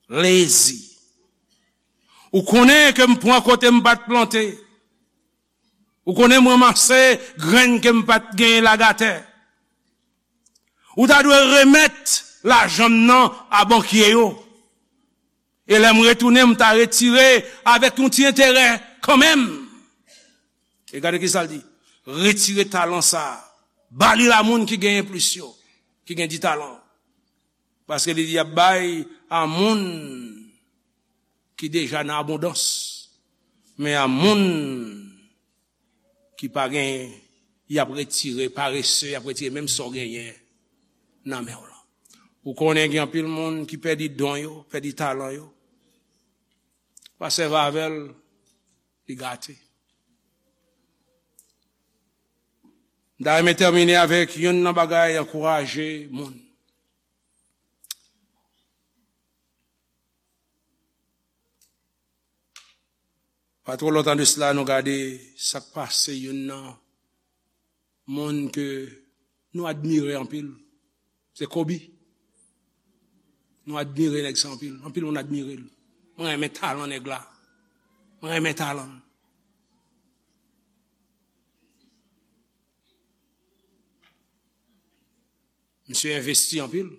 Lazy. Ou konnen ke m pran kote m pa t plante. Ou konnen m ranmase grenn ke m pa t genyen lage atè. Ou ta dwe remèt lajan m nan a bankye yo. E lè m retounen, m ta retire avèk yon ti enterè kanmenm. E gade ki sa l di. Retire talan sa a. Ba li a moun ki genyen plis yo, ki gen di talan. Paske li di y ap bay a moun ki deja nan abondans. Men a moun ki pa genyen, y ap retire, parese, y ap retire menm sa w genyen nan men w lan. Ou konnen gen anpil moun ki pèdi don yo, pèdi talan yo. Pa sèvi avè l, li gate. M ta renmen tèmine avèk youn nan bagay ankouraje moun. Pa twò lontan de sila, nou gade sa k pase youn nan moun ke nou admire anpil. Se Kobe. Nou admire nèg sa anpil. Anpil moun admire l. Mwen renmen talan nèg la. Mwen renmen talan l. Misye envesti anpil.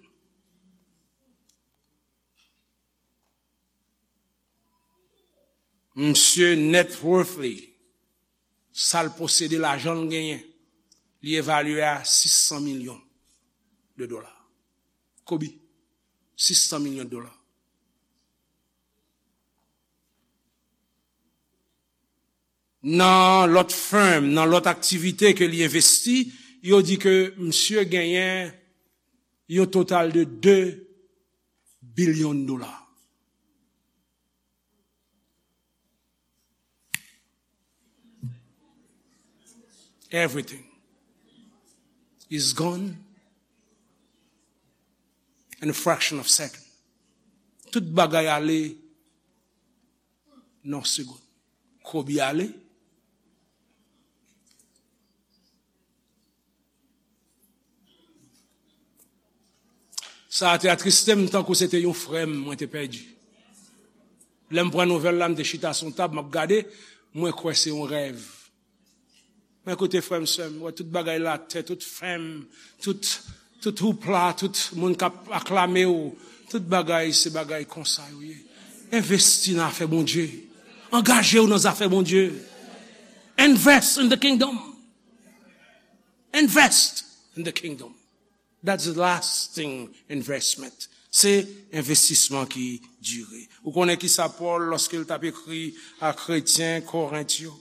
Misye net worth li, sa l posede, lajan l genyen, li evalye a sis san milyon de dola. Kobe, sis san milyon de dola. Nan lòt firm, nan lòt aktivite ke li envesti, yo di ke misye genyen yon total de de bilyon dola. Everything is gone in a fraction of second. Tout bagay ale nan segonn. Kobe ale. Sa a te atriste m tankou se te yon frè m mwen te pèdi. Lè m pran nouvèl la, m te chita sou yon tab, m ap gade, mwen kwè se yon rèv. Men koute frè m, sè m, wè tout bagay la, tè, tout fèm, tout, tout houpla, tout moun k ap aklame w, tout bagay, se bagay konsa yo ye. Envesti nan afè Bondye. Angaje w nan zafè Bondye. Invest in the kingdom. Invest in the kingdom. That's the lasting investment. Se envestisman ki dire. Ou konnen ki sa Pòl, lòske l t ap ekri a kretyen Korent yo,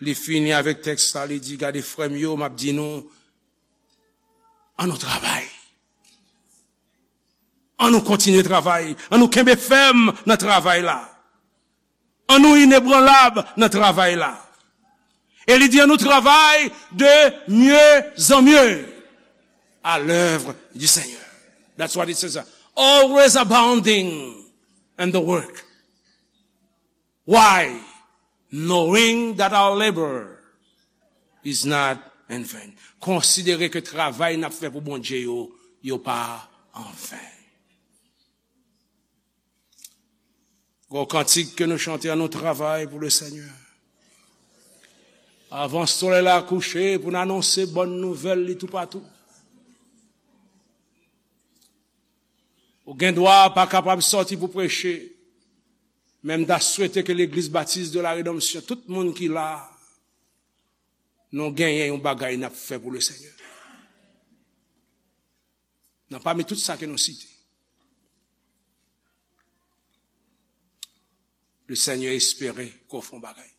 li fini avèk tèks la, li di, gade frè m yo, m ap di nou, an nou travay. An nou kontinye travay. An nou kenbe fèm nan travay la. An nou inebranlab nan travay la. E li di, an nou travay de mieux en mieux à l'œuvre du Seigneur. That's what it says. Always abounding in the work. Why? Knowing that our labor is not in vain. Konsidere ke travay n ap fè pou Bondye yo, yo pa anven. Gwo kantik ke nou chante, an nou travay pou le Senyè. Avan solèy la kouche, pou n anonse bòn nouvèl li toupatou. Ou gen dwa pa kapab sòti pou preche, men m ta swete ke Legliz Batis de la Redanmsyon, tout moun ki la, nou genyen yon bagay n ap fè pou le Senyè. Nan pami tout sa ke nou site, le Senyè espere ke w fè yon bagay.